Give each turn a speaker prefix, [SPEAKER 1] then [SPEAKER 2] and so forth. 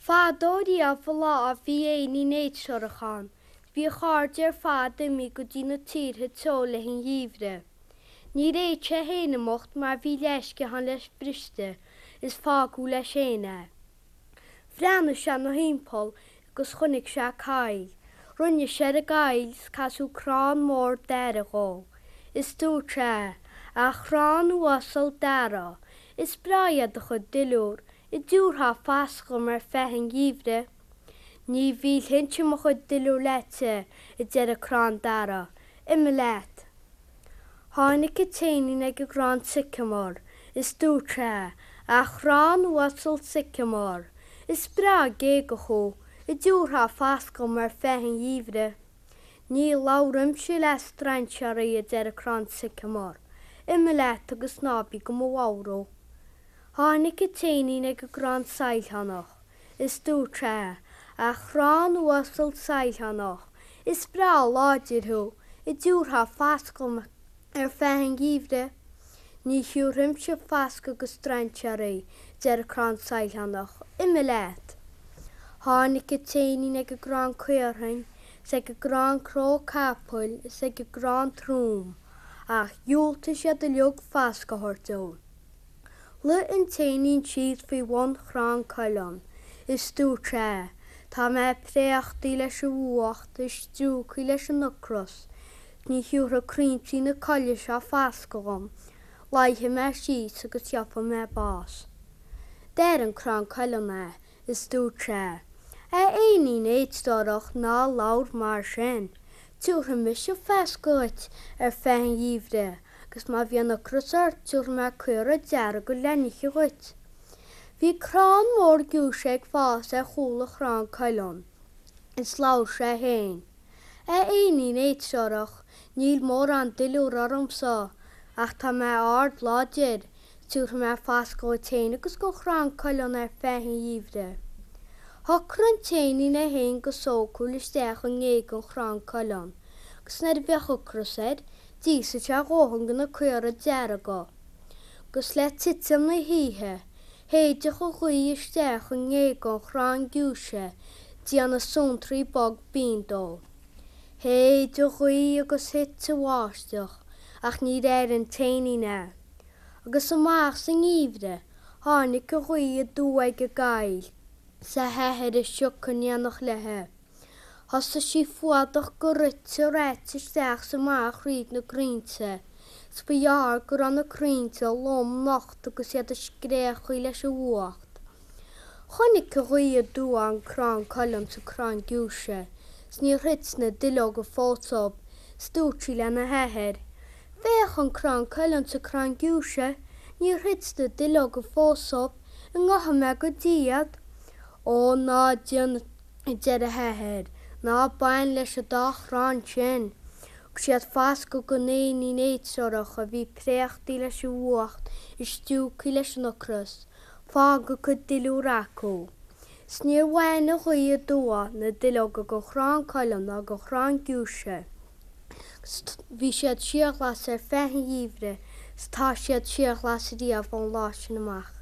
[SPEAKER 1] Fadó riamh an lá bhí éinín éidtreorach ann. Bhí a chairde ar fad imithe go dtí na tíortha teo le an gheimhreadh. Níor fhéad sé féin imeacht mar bhí leathsciathán leis briste is fágadh leis féin é. Bhreathnaigh sé 'na thimpeall agus chonaic sé coill. Rinne sé ar an gcoill is casadh crann mór dara dhó. Is dúirt sé, A chrann uasal dara, is breá iad do chuid duilliúr, An dtiúrfá fascadh dhom ar feadh an gheimhridh. Ní mhillfinnse mo chuid duilliúr leatsa, a deir an crann dara. Imigh leat. Tháinig an t-éinín ag an gcrann sycamore is dúirt sé, A chrann uasal sycamore, is breá géagach thú, an dtiúrfá fascadh dhom ar feadh an gheimhridh. Ní labhraímse le strainséaraí, a deir an crann sycamore. Imigh leat agus ná bí do mo bhodhrú. Tháinig an t-éinín ag an gcrann saighleánach is dúirt sé, A chrann uasal saighleánach, is breá láidir thú, an dtiúrfá fascadh dhom ar feadh an gheimhridh? Ní thiúrfaimse fascadh go strainséaraí, a deir an crann saighleánach, imigh leat. Tháinig an t-éinín ag an gcrann caorthainn is ag an gcrann cró capaill is ag an gcrann trom, ach dhiúltaigh siad uilig fascadh a thabhairt dó. Luigh an t-éinín síos faoi bhun chrann coileán is dúirt sé, Tá mé préachtaí leis an bhfuacht is stiúgthaí leis an ocras. Ní thiúrfaidh crainnte na coille seo fascadh dhom. Luífidh mé síos agus gheobhaidh mé bás. D'airigh an crann coileán é is dúirt sé, A éinín éidtreorach ná labhair mar sin. Tiúrfaidh mise fascadh dhuit ar feadh an gheimhridh agus má bhíonn ocras ort tiúrfaidh mé caora dearga le n-ithe dhuit. Bhí crann mór giúise ag fás ar chúl an chrann coileán is labhair sé féin, A éinín éidtreorach, níl mórán duilliúr ormsa ach tá mé ard láidir, Tiúrfaidh mé fascadh dhuit féin agus don chrann coileán ar feadh an gheimhridh. Shocraigh an t-éinín é féin go sócúil isteach i ngéag an chrann coileán, agus nuair a bheadh ocras air, d'íosfadh sé a dhóthain de na caora dearga. Agus le titim na hoíche, shéideadh an ghaoth isteach i ngéag an chrann giúise, déanamh suantraí bog binn dó. Shéid an ghaoth agus thit an bháisteach, ach níor airigh an t-éinín é. Agus amach sa ngeimhreadh tháinig an ghaoth aduaidh ag an gcoill 's a hathair a sioc in éineacht léithe. Thosaigh sí fuadach go rite raite isteach 's amach thríd na crainnte, 's ba ghearr go raibh na crainnte lom nocht agus iad ag scréachaigh leis an bhfuacht. Chonaic an ghaoth aduaidh an crann coileán 's an crann giúise, 's níor thit na duilleoga fós dóibh, 's dúirt sí lena hathair, Féach an crann coileán 's an crann giúise, níor thit na duilleoga fós dóibh, an ngabhfaidh mé go dtí iad? Ó, ná déan, a deir a hathair, ná bain leis an dá chrann sin. Thug siad fascadh don éinín éidtreorach a bhí préachtaí leis an bhfuacht is stiúgthaí leis an ocras, fág a cuid duilliúr acu. 'S níor bhain an ghaoth aduaidh na duilleoga den chrann coileán ná den chrann giúise. 'S bhí siad síorghlas ar feadh an gheimhridh 's tá siad síorghlas riamh ón lá sin amach.